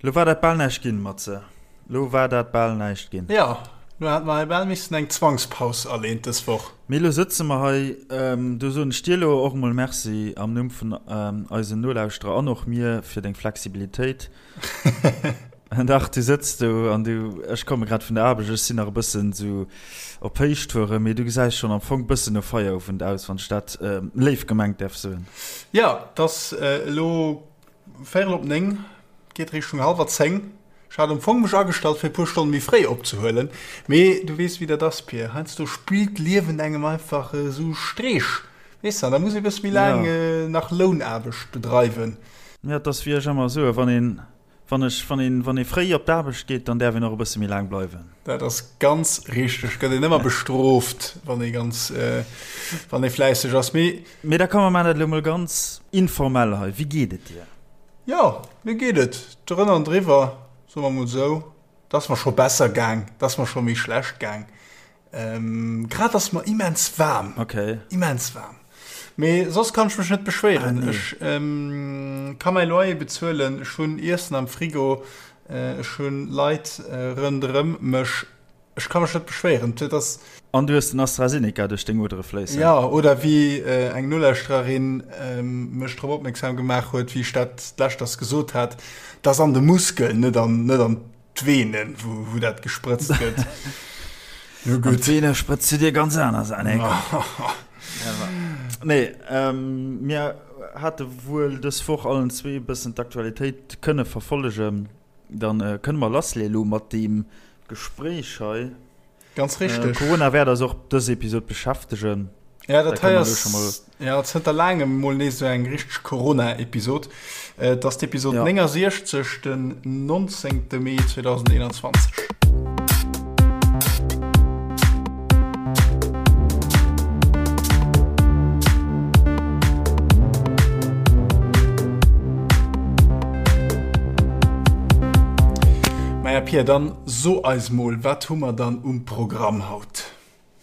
Lo war dat bal näischt ginn, Matze. Lo war dat bal näischt ginn. Jo, lo hat mer hei bal missen eng Zwangspaus aleen dës Woch. Mee lo sëtze mer hei. Do soen ech dir lo och emol Merci am Numm vun eisen Nolauschterer an och mir fir deng Flexibilitéit. Dach, du sëtz do an du, ech komme grad vun der Aarbecht, ech sinn nach e bëssen esou op Héichtouren, mee du gesäis schonn am Fong bëssen no Feierowend aus, wann ech dat léif gemengt däerf soen. Jo, 't ass elo Véierel op 9, geet Richtung hallwer 10. Ech hat am Fong mech agestallt fir e puer Stonne méi fréi opzehuelen, mee du weess wéi dat ass Pir, heiansdo spillt d'Liewen engem einfach esou Streech, weess de, an da muss ee bësse méi laang nach Lounaarbecht bedreiwen. Jo, et ass wéi ech ëmmer soen, wann een Wann ech, wann een, wann ee fréi op d'Aarbecht geet, dann däerf een och e bësse méi laang bleiwen. Dat ass ganz richteg. Gëtt een ëmmer bestrooft, wann ee ganz, wann ee fläisseg ass. Mee. Mee da komm, mer maachen dat elo mol ganz informell hei. Wéi geet et dir? Jo, mir geet et drënner an driwwer, soe mer mol esou. Et ass mer scho besser gaang, et ass mer scho méi schlecht gaang. Ähm, grad ass mer immens waarm. Okay. Immens waarm. Mee soss kann ech mech net beschwéieren. Ah, nee. Ech ähm, ka mäi Loyer bezuelen, ech hunn Iessen am Frigo, äh, ech hunn Leit äh, rënderëm mech. Ech ka mech net beschwéieren. Dat ass. An du hues den AstraZeneca duerch deng Odere fléissen. Ja, oder wéi äh, eng Nolauschtererin ähm, mech drop opmierksam gemaach huet, wéi ech dat d'leschters gesot hat, dass an de Muskeln, net an, net an D'Venen, wou, wou dat gesprëtzt gëtt. Jo gutt. D'Vene sprëtzt du dir ganz aner Saachen. Nee, ähm, mir hate wuel dës Woch allen zwee e bëssen d'Aktualitéit kënne verfollegen. Dann äh, kënne mer lassleeë lo mat deem Gespréich hei. Ganz richteg. Corona wäert eis och dës Episod beschäftegen. Ja, dat hei ass ja, zënter laangem mol nees esou eng richteg Corona-Episod. Et ass d'Episod ja. 69, den 19. Mee 2021. Maja Pia, dann So eis mol, wat hu mer dann um Programm haut?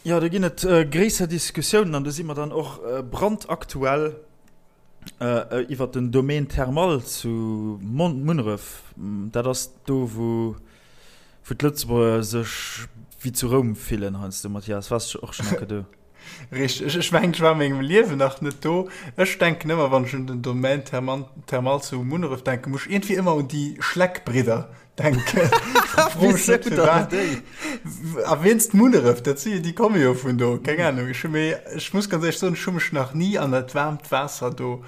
Jo, do ginn et gréisser Diskussiounen an do si mer dann och brandaktuell iwwer den Domaine thermal zu Munneref. Dat ass do, wou d'Lëtzebuerger sech wéi zu Roum fillen heiansdo. Mathias, waars du och schonn eng Kéier do? Richteg. Ech mengen, ech war a mengem Liewen nach net do. Ech denken ëmmer, wann ech un den Domaine thermal zu Munneref denken, muss ech iergendwéi ëmmer un déi Schleck-Bridder denken. Wéisou dann déi? A wéinst Munneref, dat si déi komme jo vun do. Keng Ahnung. Ech hu méi, ech muss ganz éierlech soen, ech hu mech nach ni an dat waarmt Waasser do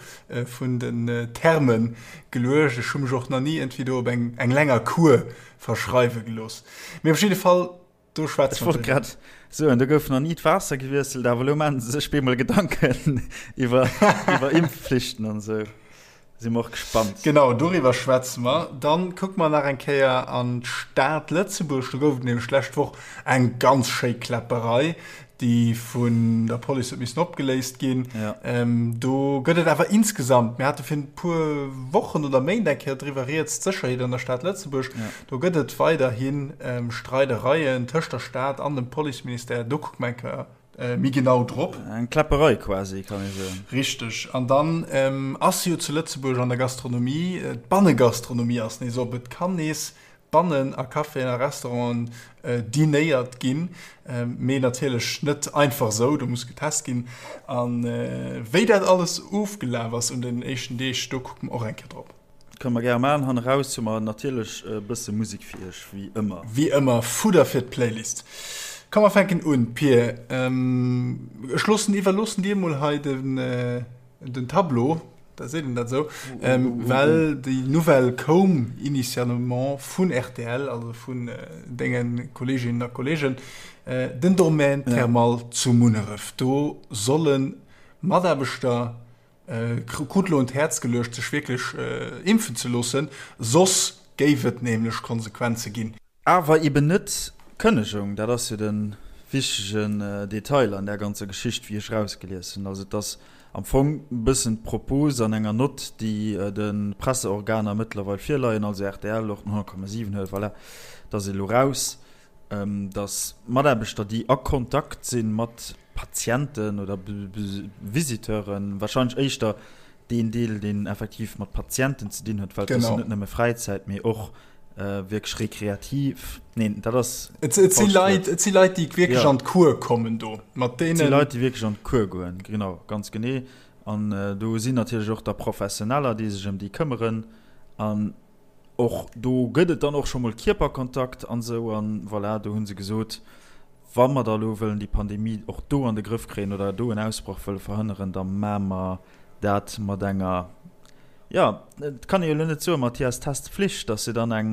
vun den Thermen geluecht. Ech hu mech och nach ni iergendwéi do op eng eng länger Kur verschreiwe gelooss. Mee op jidde Fall, do schwätze mer. Ech wollt grad soen, do gouf nach ni d'Waasser gewiesselt, awer elo maachen se sech bemol Gedanken iwwer iwwer Impfflichten an esou. Si mer och gespannt. Genau, doriwwer schwätze mer. Dann kucke mer nach eng Kéier an d'Stad Lëtzebuerg. Do gouf et nämlech d'lescht Woch eng ganz schéi Kläpperei, déi vun der Police huet missen opgeléist ginn. Ja. Do gëtt et awer insgesamt, mir hate virun e puer Wochen oder Méint eng Kéier driwwer rieds, d'Sécherheet an der Stad Lëtzebuerg, ja. do gëtt et weiderhi Streidereien tëscht der Stad an dem Policeministère. Do kucke mer eng Kéier méi genau drop. Eng Kläpperei quasi, kann ee soen. Richteg. An dann ass jo zu Lëtzebuerg an der Gastronomie, d'Bannegastronomie ass nees op. Et kann nees bannen a Caféen a Restauranten dinéiert ginn, mee natierlech net einfach esou, do muss getest ginn. A wéi dat alles ofgelaf ass un den éischten Deeg, do kucke mer och eng Kéier drop. Kënne mer gäre maachen. Hanne raus hu mer natierlech e bësse Musek fir iech, wéi ëmmer. Wéi ëmmer, Fudder fir d'Playlist. Komm mer fänken un, Pir. Ech loossen, iwwerloossen dir mol hei den. Den Tableau, da seet een dat esou, well déi Nouvelle koum initialement vun rtl, also vun denge Kolleeginnen a Kolleegen, den Domaine thermal zu Munneref, do solle Mataarbechter, krut elo un d'Häerz geluecht, sech wierklech impfen ze loossen, soss géif et nämlech Konsequenze ginn. Awer eben net d'Kënnegung, dat ass jo de wichtegen Detail an där ganzer Geschicht, wéi ech erausgelies hunn. Also et ass am Fong e bëssen d'Propos an enger Nott, déi de Presseorganer mëttlerweil virleien, also rtl, och den 100,7 huet, voilà, dat ass elo raus, datt Mataarbechter, déi a Kontakt si mat Patienten oder Visiteuren, wahrscheinlech éischter. Deen Deel, deen effektiv mat Patienten ze dinn huet, well et ass jo net nëmme Fräizäit, mee och wierklech rekreativ. Neen, dat ass. Et si Leit, et si Leit, déi wierklech an d'Cours kommen do, mat deenen. Et si Leit, déi wierklech an d'Cours goen, genau, ganz genee. An do sinn natierlech och da Professioneller, déi sech ëm déi këmmeren. An och do gëtt et dann och scho mol Kierperkontakt an esou. An voilà, do hu se gesot, wa mer da elo wëllen déi Pandemie och do an de Grëff kréien oder do en Ausbroch wëlle verhënneren, da maache mer dat mat enger, jo, et kann ee jo elo net soen, Mathias, Testpflicht, ass jo dann eng,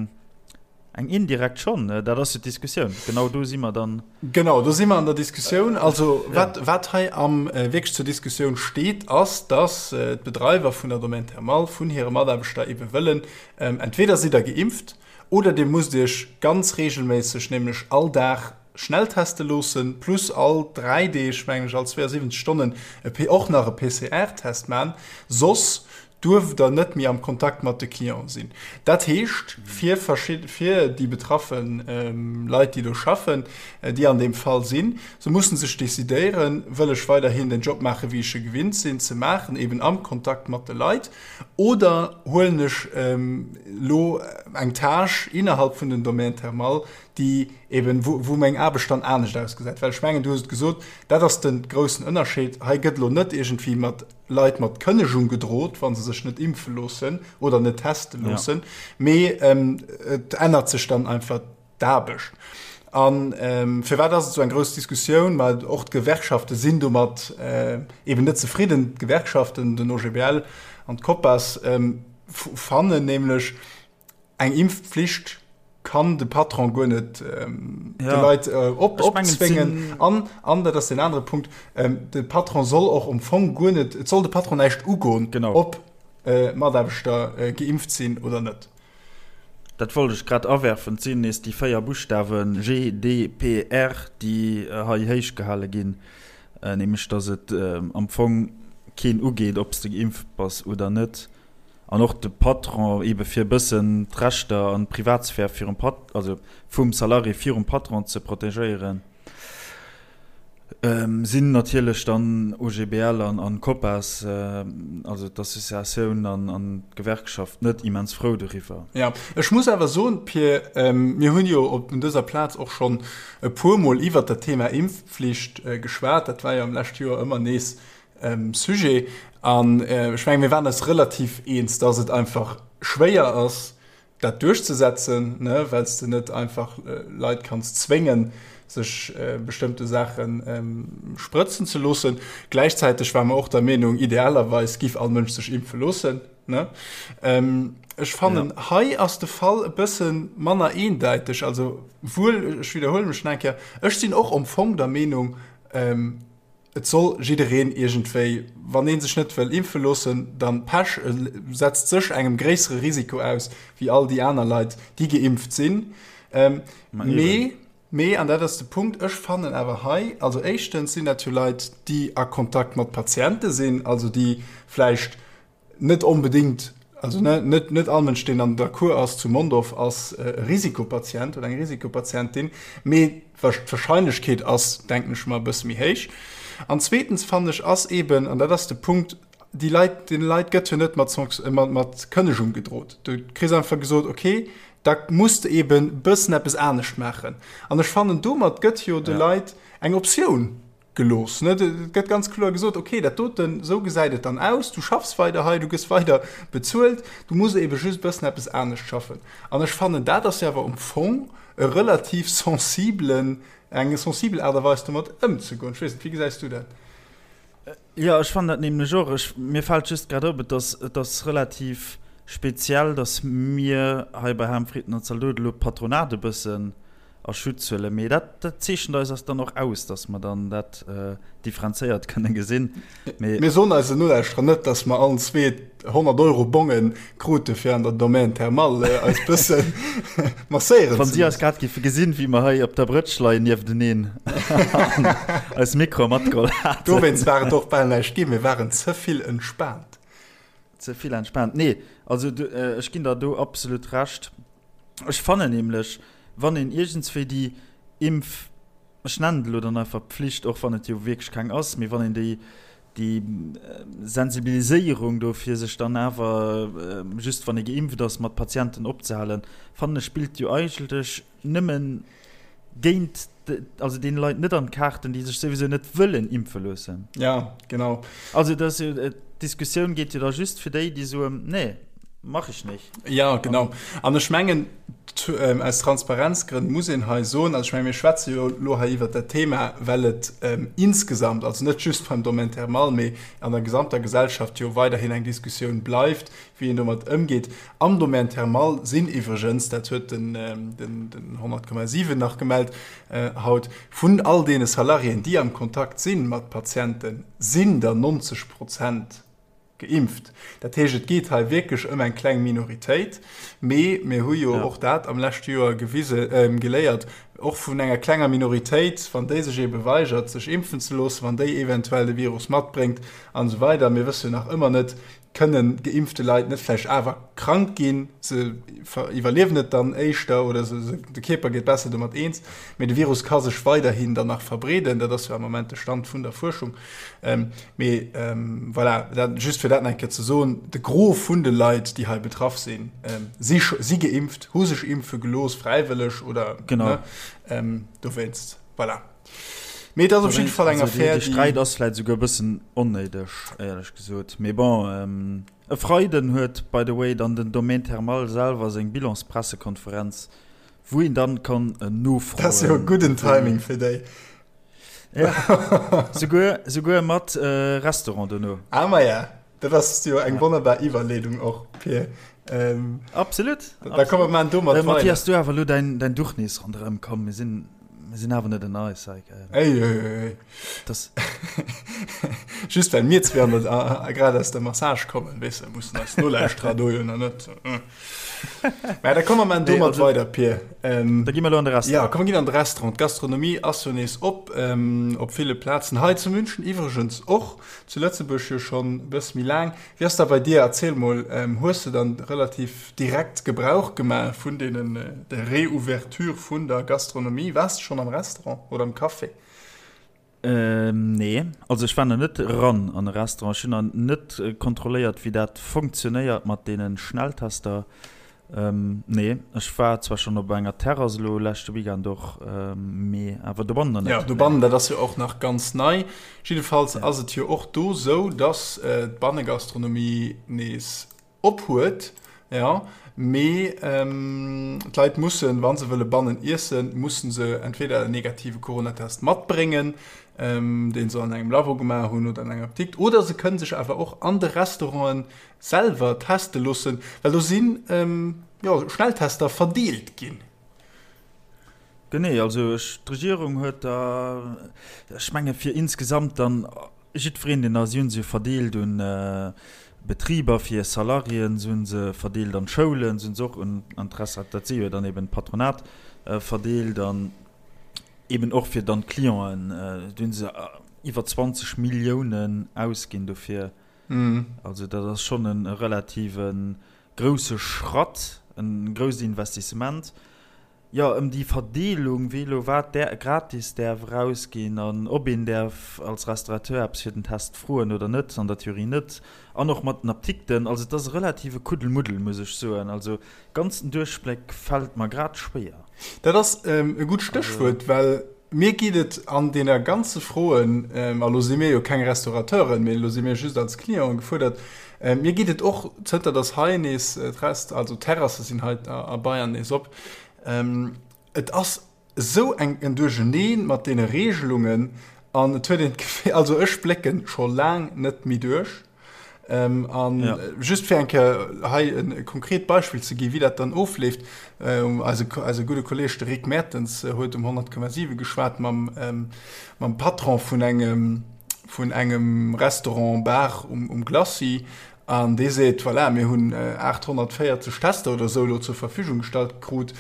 eng indirekt schonn, dat ass jo d'Diskussioun, genau do si mer dann. Genau, do si mer an der Diskussioun. Also wat, wat hei am wierklech zur Diskussioun steet, ass, dass d'Bedreiwer vun der Domaine Thermal vun hire Mataarbechter ebe wëllen, entweder sidd Der geimpft oder Dir musst Iech ganz reegelméisseg, nämlech all Dag, schnell teste loossen, plus all 3 Deeg, mengen ech, all 72 Stonnen e och nach e PCR-Test man, soss duerft der net méi am Kontakt mat de Clienten sinn. Dat heescht fir verschidde, fir déi betraffe Leit, déi do schaffen, déi an deem Fall sinn, se mussen sech decidéieren, wëll ech weiderhin den Job maachen, wéi ech e gewinnt sinn ze maachen, eben am Kontakt mat de Leit, oder huelen ech elo eng Tâche innerhalb vun den Domaines thermales, déi eben, wou, wou meng Aarbecht dann anescht ausgesäit. Well ech mengen, du hues et gesot, dat ass de groussen Ënnerscheed. Hei gëtt elo net iergendwéi mat Leit mat Kënnegung gedrot, wa se sech net impfe loossen oder net teste loossen, mee et ännert sech dann einfach d'Aarbecht. A firwat ass et esou eng grouss Diskussioun? Ma och d'Gewerkschafte sinn domat eben net zefridden. D'Gewerkschaften, den OGBL an d'Copas, fannen nämlech, Eng Impfpflicht kann de Patron guer net ähm, ja. de Leit äh, op, opzwéngen. An, an dat ass den anere Punkt, ähm, de Patron soll och um Fong guer net, et soll de Patron näischt ugoen, genau. ob äh, Mataarbechter äh, geimpft sinn oder net. Dat wollt ech grad awerfen, et sinn nees déi 4 Buschtawen G, D, P, R, déi äh, hei héich gehale ginn, äh, nämlech datt et äh, am Fong keen ugeet, ob s de geimpft bass oder net. An och de Patron, eebe fir e bëssen d'Rechter an d'Privatsphär virum Pat-, also vum Salarié virum Patron ze protegéieren, sinn natierlech dann OGBL an an Copas, also d'Associatioun an an d'Gewerkschaft net immens frou doriwwer. Jo, ech muss awer soen, Pir, mir hunn jo op dëser Plaz och schonn e puermol iwwert dat Thema Impfpflicht geschwat. Dat war jo am leschte Joer ëmmer nees Sujet. An ech mengen, mir waren eis relativ eens, dass et einfach schwéier ass, dat duerchzesetzen, ne, well s de net einfach Leit kanns zwéngen, sech bestëmmte Saache sprëtzen ze loossen. Gläichzäiteg ware mer och der Meenung, idealerweis giff all Mënsch sech impfe loossen, ne. Ech fannen, hei ass de Fall e bësse manner eendäiteg. Also wuel, ech widderhuele mech nach eng Kéier, ech sinn och am Fong der Meenung, Et soll jiddereen iergendwéi, wann ee sech net wëll impfe loossen, dann Pech, e setzt sech engem gréissere Risiko aus wéi all déi aner Leit, déi geimpft sinn. Mee, mee, an dat ass de Punkt, ech fannen awer hei, also éischtens sinn dat jo Leit, déi a Kontakt mat Patiente sinn, also déi vläicht Net onbedéngt, also net net all Mënsch, deen an der Kur ass zu Mondorf, ass e Risikopatient oder eng Risikopatientin, mee d'Warscheinlechkeet ass, denken ech mer, e bësse méi héich. An zweetens fannen ech ass eeben, an dat ass de Punkt, déi Leit, deene Leit gëtt jo net mat mat Kënnegung gedrot. Du kriss einfach gesot, okay, da muss de eeben e bëssen eppes anescht maachen. An ech fannen, domat gëtt jo de Leit eng Optioun Gelooss. Ne? Et gëtt ganz kloer gesot, okay, dat doten, esou gesäit et dann aus, du schaffs weider hei, du gëss weider bezuelt, du muss ebe just e bëssen eppes anescht schaffen. An ech fannen, dat ass jo awer um Fong e relativ sensibelen, eng sensibel Aart a Weis domat ëmzegoen. Ech weess net, wéi gesäis du dat? Jo, ech fannen dat nämlech och. Ech, mir fält just grad op, et ass, et ass relativ speziell, datt mir hei bei Ham, Fritten an Zaldote elo d'Patronat e bëssen a Schutz huelen. Mee dat, dat zeechent eis ass dann och aus, datt mer dann dat differenzéiert kënne gesinn. Mee. Mir soen eisen Nolauschterer net, datt mer allen zwee 100 Euro Bonge krute fir an der Domaine Thermale eis bësse masséieren ze Wann si eis grad géife gesinn, wéi mer hei op der Brëtsch leien niefteneen an eis Mikroe matgeholl haten. Dowéinst war et och bal näischt ginn, mir waren ze vill entspaant. Ze vill entspaant. Nee, also ech ginn der do absolut Recht. Ech fannen nämlech, wann een iergendswéi déi Impf, ech nennen et elo dann einfach Pflicht, och wann et jo wierklech keng ass, mee wann een déi. Déi Sensibiliséierung do fir sech dann awer just wann ee geimpft ass mat Patienten opzehalen, fannen ech spillt jo eigentlech nëmmen géint, also deene Leit net an d'Kaarten, déi sech souwisou net wëllen impfe loossen. Ja, genau. Also dat ass jo, d'Diskussioun geet jo da just fir déi, déi soen, nee, mach ich nicht. Ja, genau. An ech mengen, aus Transparenzgrënn muss een hei soen, also ech menge mir schwätze jo elo hei iwwert dat Thema, well et insgesamt, also net just beim Domaine thermal, mee an der gesamter Gesellschaft jo weiderhin eng Diskussioun bleift, wéi een domat ëmgeet. Am Domaine thermal sinn iwwregens, dat huet den 100,7 nach gemellt haut, vun all deene Salariéen, déi am Kontakt si mat Patienten, sinn der 90 Prozent Geimpft. Dat heescht, et geet hei wierklech ëm eng kleng Minoritéit. Mee mir hu jo och dat am leschte Joer gewise, geléiert, och vun enger klenger Minoritéit, wann déi sech eebe weigert, sech impfen ze loossen, wann déi eventuell de Virus matbréngt an esou weider, mir wësse jo nach ëmmer net, kënnen geimpfte Leit net vläicht awer krank ginn, se iwwerliewen et dann éischter oder se, de Kierper gétt besser domat eens, mee de Virus ka sech weiderhin dann nach verbreeden. Dat ass jo am Moment de Stand vun der Fuerschung. Mee voilà, dat just fir dat nach eng Kéier ze soen, de Gros vun de Leit, déi hei betraff sinn, si si geimpft, hu sech impfe gelooss, fräiwëlleg oder genau. Ne, dowéinst, voilà. Mee et ass op jidde Fall eng Affär, déi. De Sträit ass vläicht esouguer e bëssen onnéideg, éierlech gesot. Mee bon, e Freiden huet by the way dann den Domaine Thermal selwer seng Bilanspressekonferenz, wou een dann kann nofroen. Dat ass jo e gudden Timing fir déi. Ja. Souguer, souguer mat äh, Restaurant dono. Ah, ma ja. Dat ass jo eng wonnerbar Iwwerleedung och, Pir. Ähm, absolut. Da, da komme man domat äh, Matthias, du awer lo dein, dein Duch nees ronderëm komm. Mir sinn, mir sinn awer net en eis. Äh, ey, ey, ey. Das Just well mir zwee an der, äh, grad aus der Massage kommen, weess de, mussen eis Nolauschterer do jo nach net. Äh. Mä da komme mer domat also, weider, Pir. Ähm, da gi mer lo an de Restaurant. Ja, komm, mer ginn an de Restaurant. D'Gastronomie ass jo nees op, ähm, op ville Plazen. Hei zu München iwwregens och, zu Lëtzebuerg jo schonn e bësse méi laang. Wéi ass dat bei dir? Erziel mol, ähm, hues de dann relativ direkt Gebrauch gemaach vun deenen, der Reouverture vun der Gastronomie? Waars de schonn am Restaurant oder am Café? Nee, also ech war nach net eran an e Restaurant. Ech hunn nach net kontrolléiert, wéi dat funktionéiert mat deene Schnelltester. Nee, ech war zwar schonn op enger Terrass elo leschte Weekend och, mee awer dobannen nach net. Jo, dobannen, dat ass jo och nach ganz nei. Jiddefalls ass et jo och do esou, datt d'Bannegastronomie nees Op huet, jo, mee d'Leit mussen, wa se wëlle bannen iessen, musse se entweder en negative Coronatest matbréngen, dee se an engem Labo gemaach hunn oder an enger Apdikt, oder se kënne sech awer och an de Restaurante selwer teste loossen, well do si jo Schnelltester verdeelt ginn. Genee, also ech, d'Regierung huet da, ech menge fir insgesamt dann Jiddwereen, deen da, si hunn se jo verdeelt un Betriber fir Salariéen, se hunn se verdeelt an d'Schoulen, se hunn se och un an d'Restaurant, dat si jo dann eben d'Patronat, verdeelt an eben och fir dann d'Clienten. Do hunn se iwwer 20 Milliounen ausginn dofir. Also dat ass schonn e relative grousse Schratt, e grousst Investissement. Jo, ëm déi Verdeelung, wee elo wat där gratis däerf erausginn an ob een däerf als Restaurateur eppes fir den Test froen oder net, an der Theorie net, an och mat den Apdikten. Also et ass e relative Kuddelmuddel, muss ech soen. Also ganz den Duerchbléck fält mer grad schwéier. Dat ass e gutt Stéchwuert, well mir geet et an deene ganze Froen, a lo si mir jo keng Restaurateuren, mee lo si mir just als Clienten gefuerdert, mir geet et och, zënter datt hei nees d'Rest, also d'Terrasse sinn hei a Bayern nees op, et ass esou eng en Duercheneen mat deene Regelungen an et huet een d'Gefill, also ech blécken scho laang net méi duerch. An ja. just fir eng Kéier hei e konkret Beispill ze gi wéi dat dann ofleeft, eise, eise gudde Kolleg de Rick Mertens huet um 100,7 geschwat mam, mam Patron vun engem, vun engem Restaurant Bar um, um Glacis an dee seet, voilà, mir hunn 840 Tester oder esou elo zur Verfügung gestallt krut,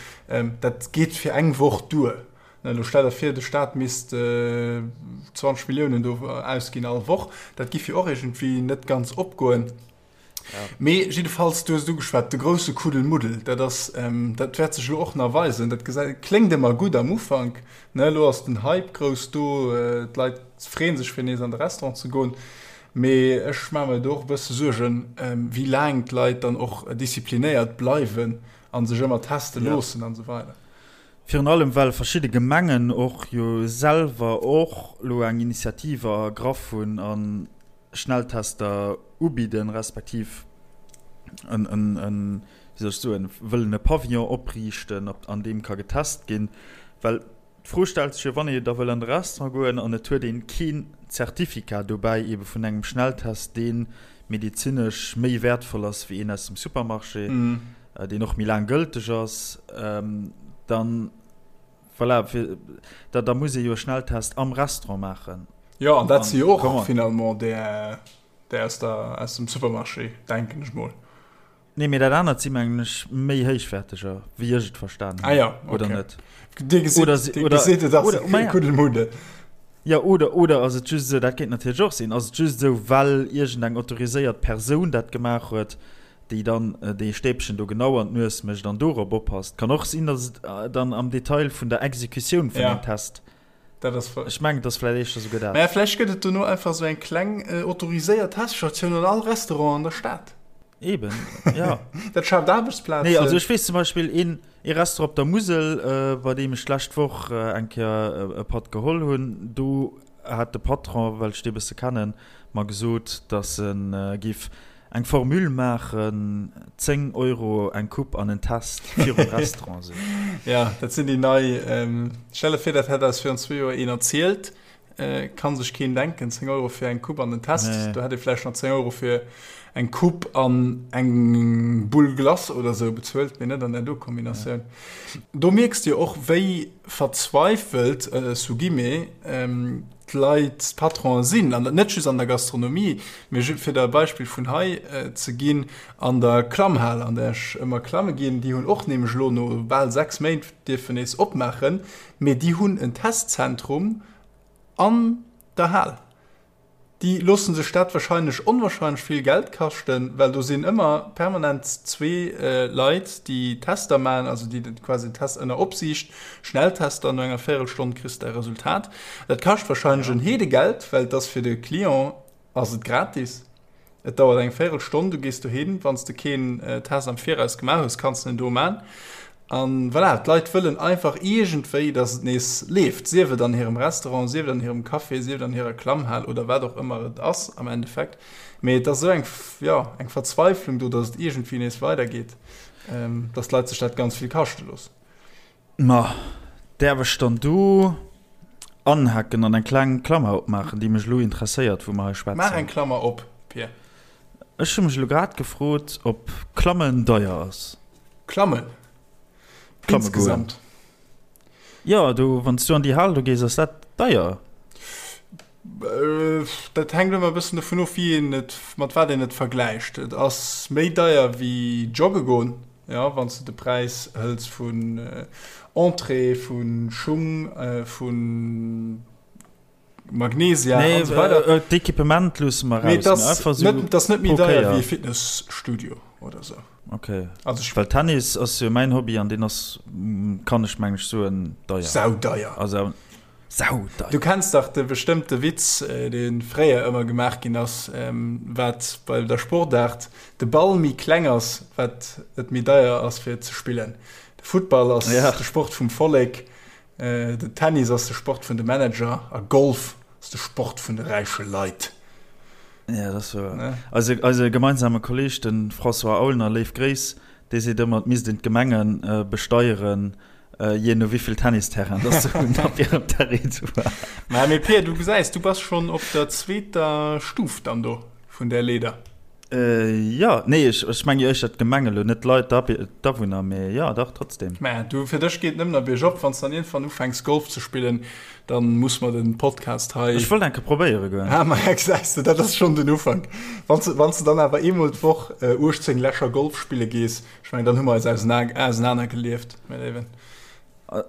dat geet fir eng Woch duer. Elo stell der vir, de Staat misst 20 Milliounen do ausginn all Woch. Dat giff jo och iergendwéi net ganz opgoen. Mee jiddefalls, du hues et ugeschwat, de grousse Kuddelmuddel, dat ass, dat wäert sech elo och nach weisen. Dat gesäit, kléngt ëmmer gutt am Ufank, ne, elo ass den Hype grouss do, d'Leit freeë sech fir nees an de Restaurant ze goen. Mee ech maache mer do och e bësse Suergen, wéi laang d'Leit dann och disziplinéiert bleiwen a sech ëmmer teste loossen an esou weider. Virun allem well verschidde Gemengen och jo selwer och elo eng Initiative ergraff hunn a Schnelltester ubidden, respektiv en, wéi soll ech soen, wëllen e Pavillon opriichten, an deem ka getest ginn. Well d'Fro stellt sech jo, wann ee da wëll an de Restaurant goen an et huet een keen Zertifikat dobäi, eebe vun engem Schnelltest, dee medezinesch méi wäertvoll ass wéi een aus dem Supermarché, deen och méi laang gëlteg ass, dann, voilà, fir, da, da muss ee jo e Schnelltest am Restaurant maachen. Jo, an dat si jo och finalement där, där aus der, aus dem Supermarché, denken ech mol. Nee, mee dat anert si mengen ech méi héichwäerteger, wéi ech et verstan hunn. Ah ja, okay. Oder net? Dir gesitt, oder, dir oder, gesitt et ass e Kuddelmuddel. Ja, oder, oder ass et just esou, dat kéint natierlech och sinn, ass et just esou, well iergendeng autoriséiert Persoun dat gemaach huet, déi dann dee Stäbchen do genau an d'Nues mécht an dorop oppasst. Kann och sinn, datt et dann am Detail vun der Exekutioun vun ja. dem Test. Dat ass Ech mengen, et ass vläicht éischter souguer dat. Mä vläicht gëtt et dono einfach esou eng kleng autoriséiert Teststatioun an all Restaurant an der Stad. Eben, ja. Dat schaaft Aarbechtsplazen. Nee, also ech weess zum Beispill een, ee Restaurant op der Musel, bei deem ech d'lescht Woch eng Kéier e Patt geholl hunn, do hat de Patron, well ech dee bësse kennen, mer gesot, datt e géif Eng Formule maachen, 10 Euro eng Coupe an en Test virum Restaurant sinn. Ja, dat sinn déi nei. Stell der vir, dat hätt eis virun zwee Joer een erzielt. Kann sech keen denken, 10 Euro fir eng Coupe an en Test. Nee. Do hätt ee vläicht nach 10 Euro fir eng Coupe an eng Boule Glace oder sou bezuelt, mee net an där do Kombinatioun. Ja. Do mierks de jo och, wéi verzweifelt, sous guillemets, d'Leit, d'Patronen sinn, an net just an der Gastronomie, mee fir der e Beispill vun hei ze ginn, an der Klammhal, an där ech ëmmer klamme ginn, déi hunn och nämlech elo no bal 6 Méint dierfen nees opmaachen, mee déi hunn en Testzentrum an der Hal. Déi loosse sech dat wahrscheinlech onwahrscheinlech vill Geld kaschten, well do sinn ëmmer permanent zwee Leit, déi Tester maachen, also déi quasi den Test ënner Opsiicht, Schnelltester, no enger Véierelstonn kriss de däi Resultat. Dat kascht wahrscheinlech en Heedegeld, well et ass fir de Client ass et gratis. Et dauert eng Véierelstonn, du gees dohin, wann s de keen Test am Viraus gemaach hues, kanns de en do man. An voilà, d'Leit wëllen einfach iergendwéi, dass et nees leeft, sief et an hirem Restaurant, sief et an hirem Café, sief et an hirer Klammhal oder wat och ëmmer et ass am Endeffekt. Mee et ass esou eng, jo, eng Verzweiflung do, dass et iergendwéi nees weidergeet, dass d'Leit sech dat ganz vill kaschte loossen. Ma däerf ech dann do anhaken an eng kleng Klammer opmaachen, déi mech elo interesséiert, wou mer hei schwätzen? Maach eng Klammer op, Pir. Ech hu mech elo grad gefrot, ob Klammen deier ass. Klammen? Klamme goen. Insgesamt? Jo, do, wann s du an déi Hal do gees, ass dat deier. Dat hänkt ëmmer e bëssen dovun of, wéi een et, mat wat een et vergläicht. Et ass méi deier wéi jogge goen, jo, wann s de de Präis hëls vun Entrée, vu Schung, vu Magnesia an esou weider. Nee, d'Equipement loosse mer raus, mee einfach esou pro Kéier. Et ass net méi deier wéi e Fitnesstudio oder esou. Ok, also well Tennis ass jo mäin Hobby an deen ass, kann ech meng ech soen, deier. Saudeier. Also Saudeier. Du kenns dach de bestëmmt de Witz, dee fréier ëmmer gemaach ginn ass, wat bei der Sportaart de Ball méi kleng ass, wat et méi deier ass fir ze spillen. De Futtball ass de Sport vum Vollek, den Tennis ass de Sport vun de Manager a Golf ass de Sport vun de räiche Leit. Ja, dat ass wouer. Eise, eise gemeinsame Kolleeg, de François Aulner, léif Gréiss, dee seet ëmmer, et misst een d'Gemenge besteieren, Jee no wéivill Tennisterrain dass se hunn op hirem Territoire. Mä mee Pir, du gesäis, du bass schonn op der zweeter Stuf dann do vun där Leeder. Jo, nee, ech, ech menge jo éischter d'Gemeng elo, net d'Leit, d'Awunner, mee jo, dach, trotzdem. Mä du, fir dech geet et nëmmen a biergop. Wann s de dann iergendwann ufänks Golf ze spillen, da muss mer den Podcast hei. Ech wollt eng Kéier probéiere goen. Ah, maja, gesäis de, dat ass schonn den Ufank. Wann s, wann s de dann awer eemol d'Woch 18 Lächer Golf spille gees, Ech mengen, dann hu mer eis ausenaner gelieft, mäi Léiwen.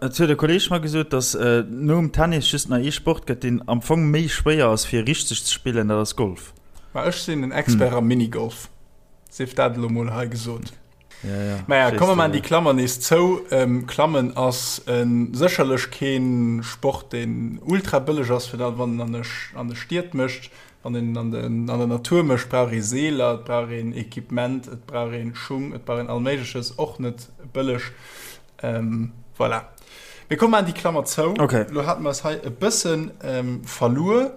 Et huet e Kolleeg mer gesot, datt nom Tennis just nach ee Sport gëtt, deen am Fong méi schwéier ass, fir richteg ze spillen, dat ass Golf. Ma ech sinn en Expert am Minigolf, sief dat elo mol hei gesot. Ja, ja, Maja, komm mer maachen déi Klammer nees zou. Klammen ass sécherlech kee Sport, deen ultra bëlleg ass, fir dat wann en an de Stied mécht. Wann een an den, an der Natur mécht, brauch ee Seeler, et brauch een Equipement, et brauch ee Schung, et brauch een all Méigleches, och net bëlleg. Ähm, voilà. Mir komm maachen déi Klammer zou. Okay. Lo hate mer eis hei e bëssen ähm, verluer.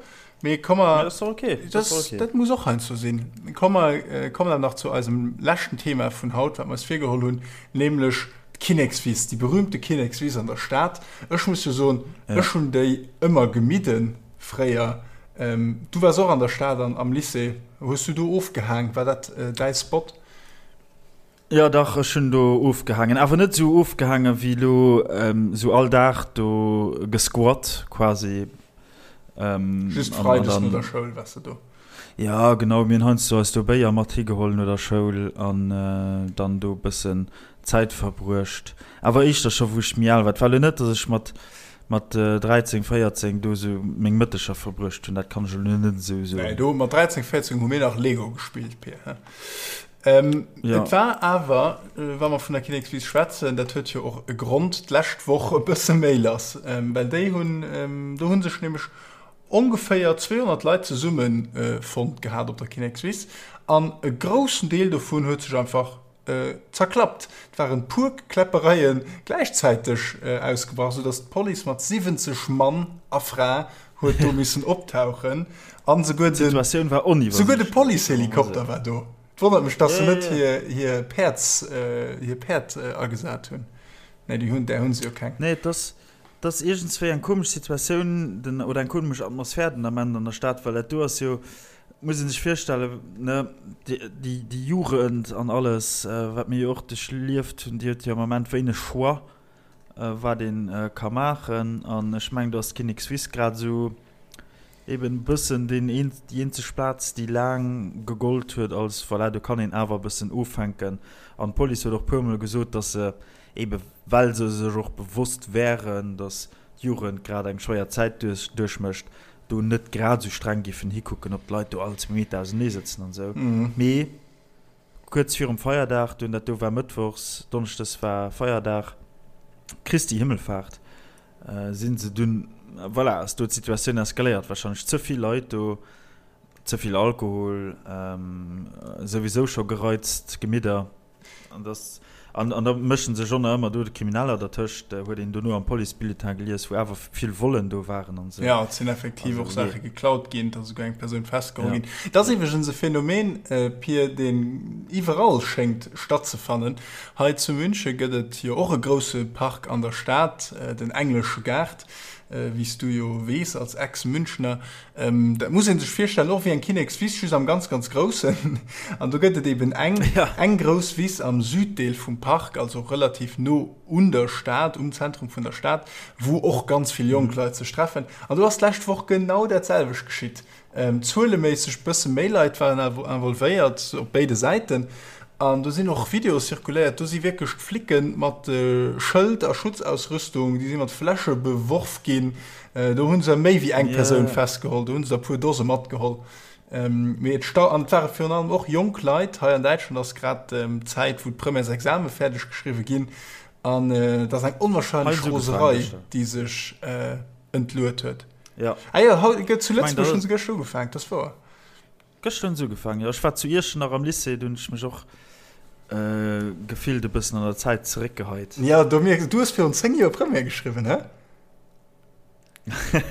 Mee komm mer. Ja, dat ass doch okay. Dat, das, okay. dat muss och heiansdo sinn. Komm mer äh, kommen dann nach zu eisem leschten Thema vun haut, wat mer eis virgeholl hunn, nämlech d'Kinnekswiss, déi berühmte Kinnekswiss an der Stad. Ech muss jo soen, ja. ech hunn déi ëmmer gemidden fréier. Ähm, du wars och an der Stad an am Lycée. Hues du do ofgehaang? War dat äh, däi Spot? Jo dach, ech hunn do ofgehaangen. Awer net esou ofgehaangen wéi elo esou all Dag do gesquat quasi. Just Freides no der Schoul waars de do? Jo genau, mir hunn heiansdo eis do Béier mat higeholl no der Schoul an dann do e bëssen Zäit verbruecht. Awer éischter scho wou ech méi al war. Et war elo net, datt ech mat mat 13, 14 do esou meng Mëtteger verbruecht hunn, dat kann ech elo net esou soen. Nee, do mat 13, 14 hu mir nach Lego gespillt, Pir. Ähm, ja. Et war awer, äh, wa mer vun der Kinnekswiss schwätzen, dat huet jo och e Grond, d'lescht Woch e bësse méi lass. Ähm, well déi hunn, ähm, do hu sech nämlech ongeféier 200 Leit zesumme äh, fonnt gehat op der Kinnekswiss an e groussen Deel dovun huet sech einfach äh, zerklappt. Et waren puer Kläppereie gläichzäiteg äh, ausgebrach, soudass d'Police mat 70 Mann a Fra huet do missen optauchen an souguer den, D'Situatioun war souguer de Policehelikopter war do. Et wonnert mech, dass se net hir, hir Päerds, hir Päerd agesat hunn. Nee, déi hunn, där hunn se jo keng. Nee, et ass, et ass iergendswéi eng komesch Situatioun den, oder eng komesch Atmosphär den Ament an der Stad, well dat do ass jo, muss ee sech virstellen, ne, déi, déi, déi Jugend an alles, wat mir jo och duerchlieft hunn, déi huet jo am Ament wéineg Choix. wat een ka maachen an ech mengen do ass d'Kinnekswiss grad esou eben e bëssen deen een déi eenzeg Plaz déi laang gegollt huet als voilà do kann een awer e bëssen ofhänken an d'Police huet och puermol gesot, datt se ebe well se sech och bewosst wären, datt d'Jugend grad eng schwéier Zäit duerchmécht, do net grad esou streng géifen hikucken, ob d'Leit do all zwee Meter ausenee sëtzen an esou. Mee Kuerz virum Feierdag dunn, dat do war mëttwochs, donneschdes war Feierdag, Christi Himmelfahrt, si se dunn, voilà, ass do d'Situatioun eskaléiert, warscheinlech ze vill Leit do, ze vill Alkohol, souwisou scho gereizt Gemidder. An dass, an da mësche sech och nach ëmmer do d'Krimineller dertëscht, huet een dono am Policebulletin gelies, wou awer vill Vollen do waren an esou. Jo, et sinn effektiv och Saache geklaut ginn, et ass esouguer eng Persoun festgeholl ginn. Et ass iwwregens e Phänomen, Pir, deen iwwerall schéngt stattzefannen. Hei zu Münche gëtt et jo och e grousse Park an der Stad, den Englesche Gaart, wéi s du jo weess als Ex-Münchner. Dat muss ee sech virstellen och wéi eng Kinnekswiss, just am ganz, ganz Groussen. An do gëtt et eben eng, eng grouss Wiss am Süddeel vum Park, also relativ no un der Stad, um Zentrum vun der Stad, wou och ganz vill jonk Leit sech treffen. An do ass d'lescht Woch genau dat selwecht geschitt. Zueleméisseg bësse méi Leit waren involvéiert op béide Säiten. An do sinn och Videoe zirkuléiert, do si wierklech d'Flicke mat Schëld a Schutzausrüstung, déi si mat Fläsche beworf ginn. Do hu se méi wéi eng Persoun festgeholl, do hu se der e puer Dose matgeholl. Mee et stau, an et ware virun allem och jonk Leit. Hei an Däitschland ass grad d'Zäit, wou d'Premièresexame fäerdeg geschriwwe ginn. An et ass eng onwahrscheinlech Roserei, déi sech entluet huet. Ja. Ah jo, haut gëtt zu Lëtzebuerg hunn se gëschter ugefaangen, dat ass wouer. Gëschter hunn se ugefaangen, jo. Ech war zu Iechternach am Lycée, do hunn ech mech och gefillt e bëssen an der Zäit zeréckgeheit. Ja, do mierks du hues virun 10 Joer Première geschriwwen, hä?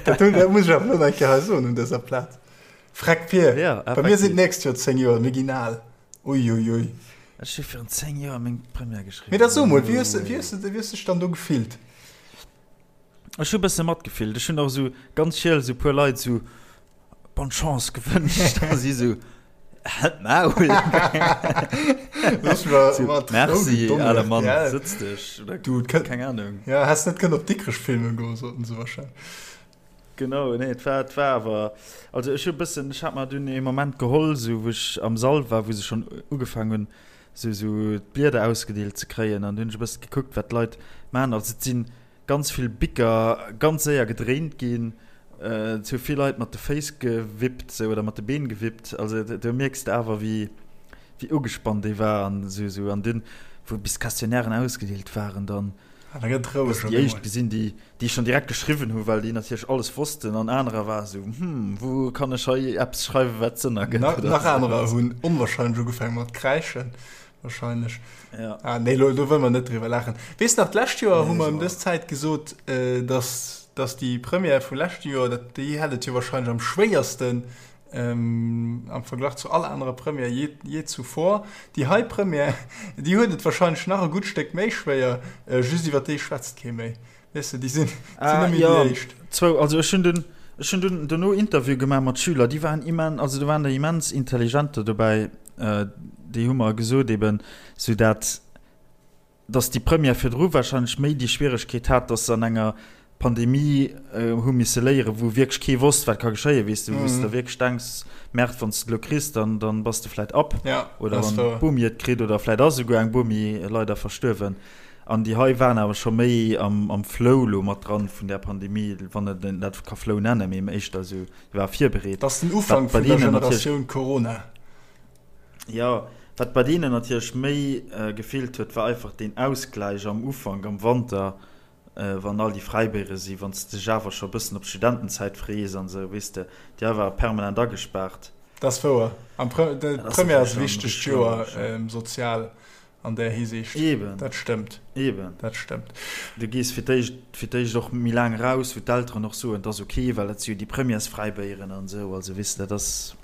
Dat, dat muss ech awer elo nach eng Kéier hei soen un dëser Plaz. Freck Pier, ja, bei mir sinn d'nächst Joer 10 Joer, mir ginn al. Uiuiui. Ech hu virun 10 Joer meng Première geschriwwen. Mee da so mol, wéi hues wéi hues de wéi hues dech dann do gefillt? Ech hu bësse matgefillt. Ech hunn och esou ganz schiel esou puer Leit esou Bonne Chance gewënscht a si esou Halt d'Maul! Merci, ale Mann, sëtz dech oder Du, keng Ahnung. Ja, häss net kënnen op Dikrech filmen goen, soten se warscheinlech. Genau, nee, et war, et war awer, also ech hu bëssen, ech hat mer dunn ee Moment geholl, esou wou ech am Sall war, wou se schonn ugefaangen hunn, esou, esou d'Blieder ausgedeelt ze kréien an du hunn ech e bëssen gekuckt, wat d'Leit maachen. Also et si ganz vill Bicker ganz séier gedréint ginn, et hu vill Leit mat de Féiss gewippt, esou, oder mat de Been gewippt. Also do mierks de awer, wéi, wéi ugespannt ee war an esou, esou. An dunn, wou bis d'Questionnairen ausgedeelt waren, dann. Ah, da gëtt roueg. Déi éischt gesinn, déi, déi schonn direkt geschriwwen hu well déi natierlech alles wossten an anerer war esou, hm, wou kann ech hei eppes schreiwen, wat Sënn ergëtt. Nach, nach anerer hunn onwahrscheinlech ugefaange mat kräischen, wahrscheinlech. Ja. Ah, nee, lo, do wëlle mer net driwwer laachen. Weess nach, d'lescht Joer nee, hu mer ëm dës Zäit gesot, äh, dass, dass déi Première vu leschte Joer, dat, déi hätt et jo wahrscheinlech am schwéiersten, Am Verglach zu all anerer Première jee, jee zuvor. Déi hei Première, déi huet et wahrscheinlech nach e gutt Stéck méi schwéier, just iwwer déi schwätzt kee méi. Weess de, déi sinn, sinn net méi déi éischt. Zwou, also ech hunn dunn, ech hunn dunn dono Interview gemaach mat Schüler, déi waren immen, also do waren der immens intelligenter dobäi, déi hu mer gesot eben, sou dat, dass déi Première virdru wahrscheinlech méi déi Schwieregkeet hat, dass se an enger Pandemie hu misse léieren, wou wierklech kee wosst, wat ka geschéien, weess de, wou s de wierklech denks, Merde, wann s de et elo kriss, dann, dann bass de vläit ab. Oder wann d'Bomi et kritt, oder vläit ass esouguer eng Bomi leider verstuerwen. An déi hei waren awer scho méi am, am Flow elo mat dran vun där Pandemie, wann een dat ka Flow nennen, mee éischter esou, déi ware virbereet. Dat ass den Ufank vun der Generatioun Corona. Jo, wat bei deenen natierlech méi gefeelt huet, war einfach deen Ausgläich am Ufank, am Wanter, wann all déi Fräibéiere sinn, wann s de dech awer scho e bëssen op d'Studentenzäit frees an esou, weess de, déi hei ware permanent agespaart. Dat ass wouer. An d'Première ass e wichtegt Joer sozial an där Hisiicht. Eben. Dat stëmmt. Eben. Dat stëmmt. Du gees fir d'éischt, fir d'éischt och méi laang eraus, wou d'Elteren och soen, et ass ok, well dat si jo déi Premièresfräibéieren an esou. Also weess de, dat ass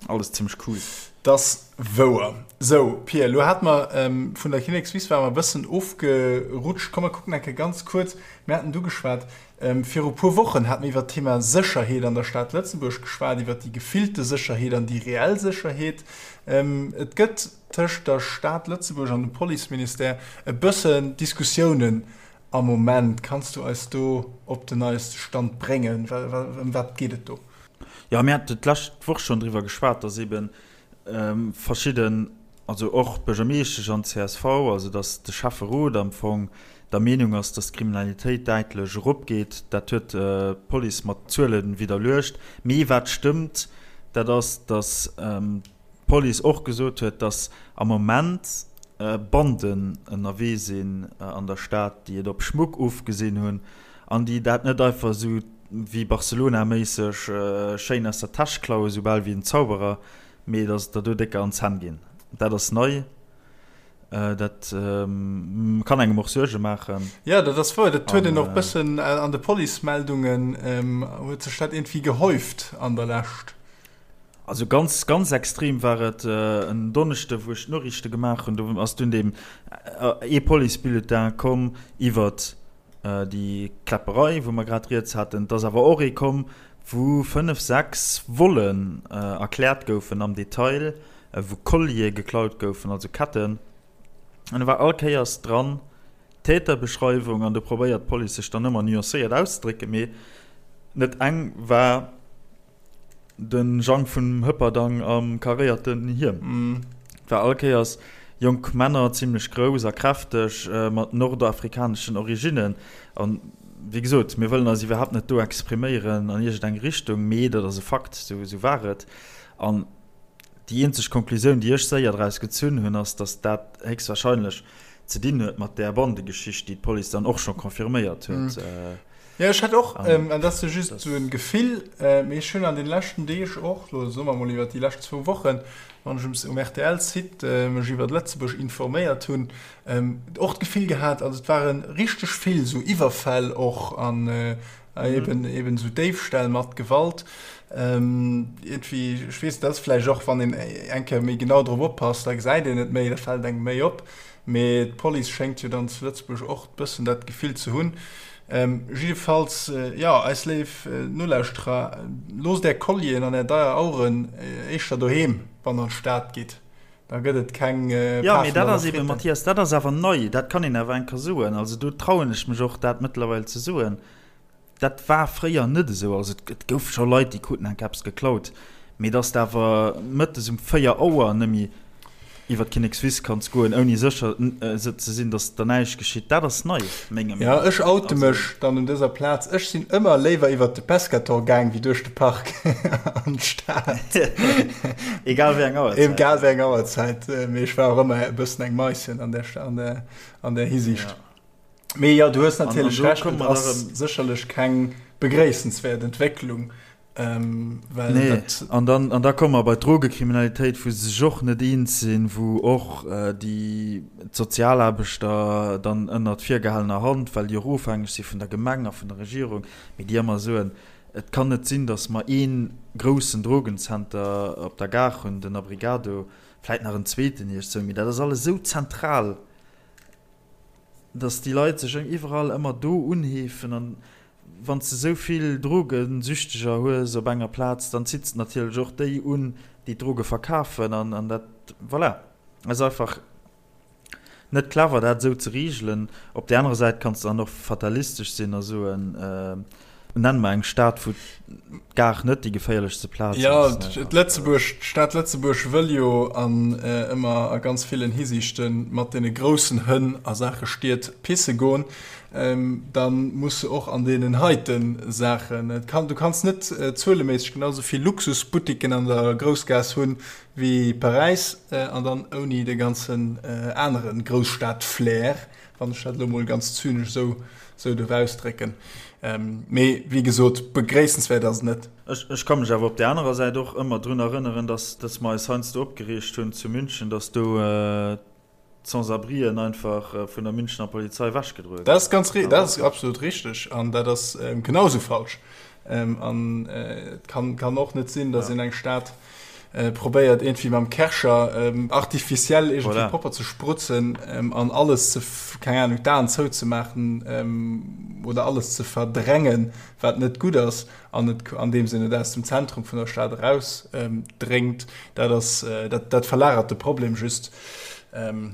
alles zimmlech cool. Dat ass wouer. Sou, Pia, elo hate mer vun der Kinnekswiss ware mer e bëssen ofgerutscht. Komm mer kucken eng Kéier ganz kuerz, mir haten du geschwat, viru puer Wochen hate mir iwwert d'Thema Sécherheet an der Stad Lëtzebuerg geschwat, iwwert déi gefillte Sécherheet an déi reell Sécherheet. Et gëtt tëscht der Stad Lëtzebuerg an dem Policeministère e bëssen Diskussiounen am Moment. Kanns du eis do op den neieste Stand bréngen? Ëm wat geet et do? Jo, mir haten d'lescht Woch schonn driwwer geschwat, dass eebe verschidden, also och d'Buergermeeschtesch an d'CSV, also dass de Schäfferot am Fong der Meenung ass, dass d'Kriminalitéit däitlech eropgeet. Dat huet d'Police mat Zuele widderluecht. Mee wat stëmmt, dat ass, dass d'Police och gesot huet, datt am Moment Banden ënnerwee sinn an der Stad, déi et op Schmuck ofgesinn hunn an déi dat net einfach esou wéi Barcelona-méisseg schéin aus der Täsch klauen, esou bal wéi en Zauberer, mee datt et der do décker an d'Zänn ginn. Dat ass nei. Dat kann engem och Suerge maachen. Jo, dat ass wouer. Dat huet een och bëssen an de Policemeldungen, huet sech dat iergendwéi gehäuft an der Lescht. Also ganz ganz extrem war et en Donneschde wou ech d'Noriichte gemaach hunn, do ass dunn deem ee Policebulletin komm iwwert déi Kläpperei wou mer grad rieds haten. Et ass awer och ee komm wou 5, 6 Vollen erkläert goufen am Detail, wou Colliere geklaut goufen, also Ketten. An do war all Kéiers dran d'Täterbeschreiwung an do probéiert d'Police sech dann ëmmer nuancéiert auszedrécken, mee net eng war De Jang vun Hëpperdang am karéierten Hiem war all Kéiers jonk Männer, zimlech grouss a kräfteg, mat nordafrikaneschen Originnen. An, wéi gesot, mir wëllen eis iwwerhaapt net do expriméieren an iergend eng Richtung, mee dat ass e Fakt, esou war et. An déi eenzeg Konklusioun, déi ech séier draus gezunn hunn, ass, datt dat héchstwahrscheinlech ze dinn huet mat där Bandegeschicht, déi d'Police dann och scho confirméiert huet. Jo, ech hätt och, an dat ass jo just esou en Gefill, mee ech hunn an den leschten Deeg och, elo soe mer emol iwwert déi lescht zwou Wochen, wann ech um RTL-Site mech iwwert Lëtzebuerg informéiert hunn, och d'Gefill gehat, also et ware richteg vill esou Iwwerfäll och an eben eben esou Déifställ mat Gewalt. Iergendwéi, ech weess net, dat ass vläicht och, wann een eng Kéier méi genau drop oppasst, da gesäit een et méi, da fält engem méi op. Mee d'Police schéngt jo dann zu Lëtzebuerg och bëssen dat Gefill ze hunn. Jiddefalls, jo, eis léif Nolauschterer, loosst är Collieren an är deier Aueren éischter doheem, wann der an d'Stad gitt. Da gëtt et keng Pafen Jo, mee dat ass eben, Mathias, dat ass awer nei. Dat kann een awer eng Kéier soen. Also do trauen ech mech och, dat mëttlerweil ze soen. Dat war fréier net esou. Also et gouf scho Leit, déi kruten enk eppes geklaut, mee dass de awer mëttes um 4 Auer nëmme iwwer d'Kinnekswiss kanns goen, ouni sécher ze sinn, dass der näischt geschitt, dat ass nei, menger Meenung no. Jo, ech oute mech dann un dëser Plaz, ech sinn ëmmer léiwer iwwer de Pescator gaang wéi duerch de Park an d'Stad. Egal wéi eng Auerzäit. Egal wéi eng Auerzäit, mee ech war och ëmmer e bëssen eng Maischen an där, an där, an där Hisiicht. Mee jo, du hues natierlech Recht, et ass sécherlech keng begréissenswäert Entwécklung. Well nee. dat an dann, an da komme mer bei d'Drogekriminalitéit, wou se sech och net eens sinn, wou och déi d'Sozialaarbechter dann ënnert virgehalener Hand, well déi och ofhängeg si vun der Gemeng a vun der Regierung, mee déi ëmmer soen, et kann net sinn, datt mer ee groussen Drogenzenter op der Gare hunn, den Abrigado, vläit nach en zweeten iergdsou, mee dat ass alles esou zentral. dass déi Leit sech iwwerall ëmmer do unheefen an wann s de esou vill Drogesüchteger hues op enger Plaz, dann zitt s de natierlech och déi un, déi d'Droge verkafen an an dat, voilà, ass einfach net clever dat esou ze regelen. Op där anerer Säit kanns de dann och fatalistesch sinn a soen, Nenn mer eng Stad, wou d'Gare net déi geféierlechste Plaz ass. Jo, Lëtzebuerg, d'Stad Lëtzebuerg wëll jo an ëmmer a ganz villen Hisiichte mat deene groussen Hënn a Saache Stied pisse goen. Da muss se och an deenen heite Saachen, et kann, du kanns net zueleméisseg genau esou vill Luxusbuttiken an der Groussgaass hunn wéi Paräis an dann ouni de ganzen anere Grousstad-Flair, wann ech dat elo mol ganz zynesch esou esou duerf ausdrécken. Mee wéi gesot, begréissenswäert ass et net. Ech ka mech awer op där anerer Säit och ëmmer drun erënneren, dass dass mer eis heiansdo opgereegt hunn zu München, dass do d'Sans-abrien einfach vun der Münchener Polizei ewechgedroe Dat ass ganz ri-, dat ass absolut richteg an dat ass genau esou falsch. An et kann kann och net sinn, dass een eng Stad probéiert iergendwéi mam Kärcher artificiel iergendwéi voilà. propper ze sprutzen an alles ze, keng Ahnung, d'Aen zouzemaachen oder alles ze verdrängen, wat net gutt ass an et an deem Sinn et aus dem Zentrum vun der Stad eraus dréngt. Dat ass, dat, dat verlagert de Problem just.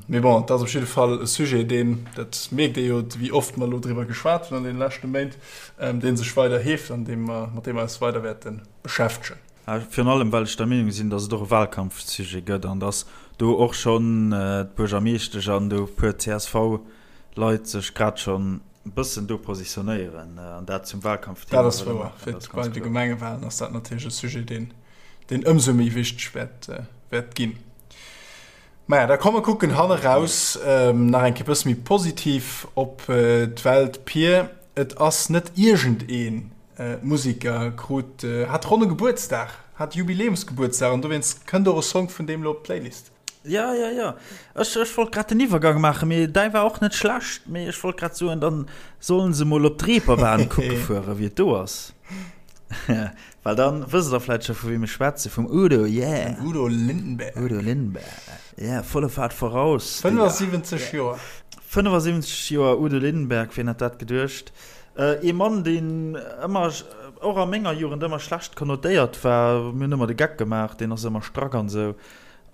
Mee bon, et ass op jidde Fall e Sujet, deen, dat mierkt ee jo, wéi oft mer elo driwwer geschwat hunn an deene leschte Méint, dee sech weider heeft an deem mer, mat deem mer eis weider wäerte beschäftegen. Virun allem well ech der Meenung sinn, datt et och e Wahlkampfsujet gëtt an datt do och schonn d'Buergermeeschtesch an do e puer CSV-Leit sech grad schonn e bëssen do positionéieren an dat zum Wahlkampfthema Dat ass wëlle wouer. maachen. Fir Dat ass bei ganz de kloer. Gemengewahlen ass dat natierlech e Sujet, deen, deen ëmsou méi wichteg wäert, wäert ginn. Maja, da komm mer kucken hanneraus nach eng Kéier e bësse méi positiv op d'Welt. Pir, et ass net iergendeen Musiker, krut, hat ronne Gebuertsdag, hat Jubiläumsgebuertsdag an dowéinst kënnt och e Song vun deem elo op d'Playlist. Jo, jo, jo. Ech, ech wollt grad den Iwwergang maachen, mee däi war och net schlecht. Mee ech wollt grad soen, dann sollen se mol op d'Reeperbahn kucke fueren, wéi et do ass. Well dann wësst der vläit scho vu weem ech schwätzen, vum Udo, yeah! Vum Udo Lindenberg. Udo Lindenberg, yeah, volle Fahrt voraus, Digga. 75 Joer. 75 Joer Udo Lindenberg, wien hätt dat geduecht? Ee Mann, deen ëmmer, och a menger Jugend, ëmmer schlecht konnotéiert war. Mir hunn ëmmer de Geck gemaach, deen ass ëmmer strack an esou.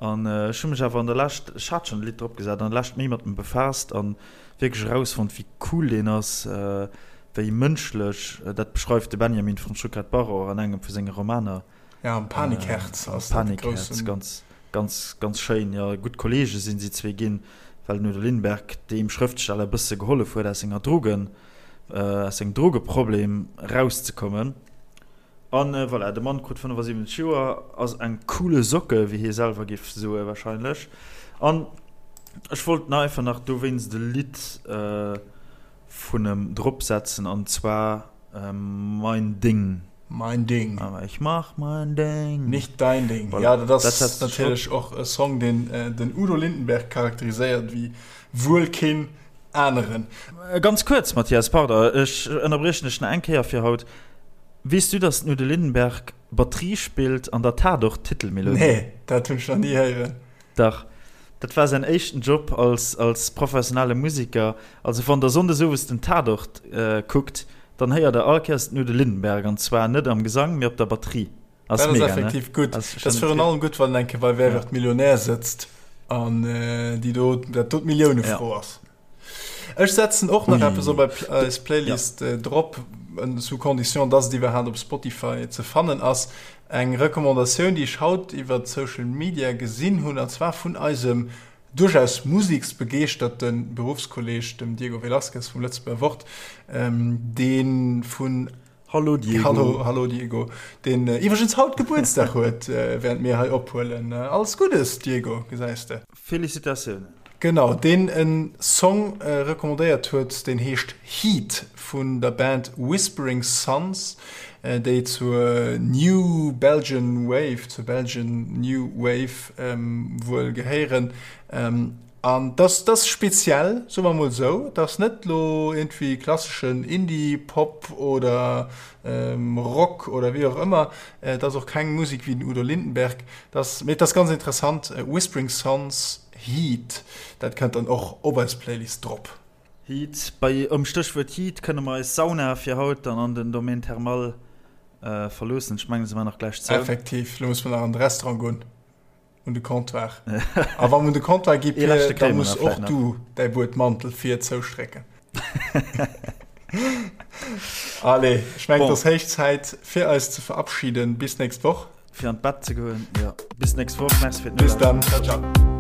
An ech hu mech awer an der Lescht, ech hat schonn e Lidd drop gesat, an der Lescht méi mat em befaasst an wierklech erausfonnt, wéi cool deen ass, wéi mënschlech. Dat beschreift de Benjamin von Stuckrad-Barre och an engem vu senge Romaner. Ja, am Panikherz ass dat de groussen. Ganz, ganz, ganz schéin. Jo, gutt Kolleege sinn si zwee ginn, well den Udo Lindenberg deem Schrëftsteller e bësse gehollef huet, aus senger Drogen, aus sengem Drogeproblem erauszekommen. An voilà, de Mann krut 75 Joer, ass eng coole Socke, wéi hie selwer géif soe warscheinlech. An ech wollt einfach nach dowéinst e Lidd vun em drop setzen, an zwar Mein Ding. Mein Ding. Aber ich mach mein Ding. Nicht dein Ding. Voilà. Ja, dat ass natierlech och e Song, deen den Udo Lindenberg charakteriséiert wéi wuel keen aneren. Ganz kuerz, Mathias, pardon, ech ënnerbriechen dech nach eng Kéier fir haut. Weess du, dass den Udo Lindenberg Batterie spillt an der Tatort-Titelmelodie? Nee, dat hunn ech nach ni héieren. Dach, dat war säin éischten Job als als professionelle Musiker. Also wann der Sonndes owes den Tatort kuckt, dann héiert der all Kéiers den Udo Lindenberg, an zwar net am Gesang, mee op der Batterie. Ass dat ass mega, ne? effektiv gutt. Ass Dat ass virun allem gutt, wann en eng Kéier bei Wer wird Millionär sëtzt an déi do, dat do d'Milliounefro ass. Ech setzen och nach eppes op eis Playlist drop, sous condition, dass et iwwerhaapt op Spotify ze fannen ass. Eng Recommandatioun, déi ech haut iwwer Social Media gesinn hunn, an zwar vun eisem duerchaus museksbegeeschterte Beruffskolleg, dem Diego Velazquez vum Lëtzebuerger Wort, dee vun Hallo Diego. Hallo, hallo Diego, deen iwwregens haut Gebuertsdag huet, während mir hei ophuelen. Alles Guddes, Diego, gesäis de. Félicitatiounen. Genau, deen en Song recommandéiert huet, deen heescht Heat vun der Band Whispering Sons, déi zur New Belgian Wave, zur Belgian New Wave wuel gehéieren. An dass dass speziell, soe mer mol esou. Et ass net lo iergendwéi klasseschen Indie-Pop oder Rock oder wéi och ëmmer. Et ass och keng Musek wéi den Udo Lindenberg. Et ass, mee et ass ganz interessant, Whispering Sons, Heat, dat kënnt dann och op eis Playlist drop. Heat, bei um Stéchwuert Heat kënne mer eis Sauna fir haut dann an den Domaine Thermal verloossen. Ech mengen, se war nach gläich zou. Effektiv, lo musse mer nach an de Restaurant goen. Un de Comptoir. A wann un de Comptoir gi Pir, da muss och du däi Buedmantel vir zoustrécken. Allez, ech mengen, et ass héich Zäit fir eis ze verabschieden. Bis nächst Woch. Fir an d'Bett ze goen, jo. Bis nächst Woch. Merci fir d'Nolauschteren. Bis dann. Ciao, ciao.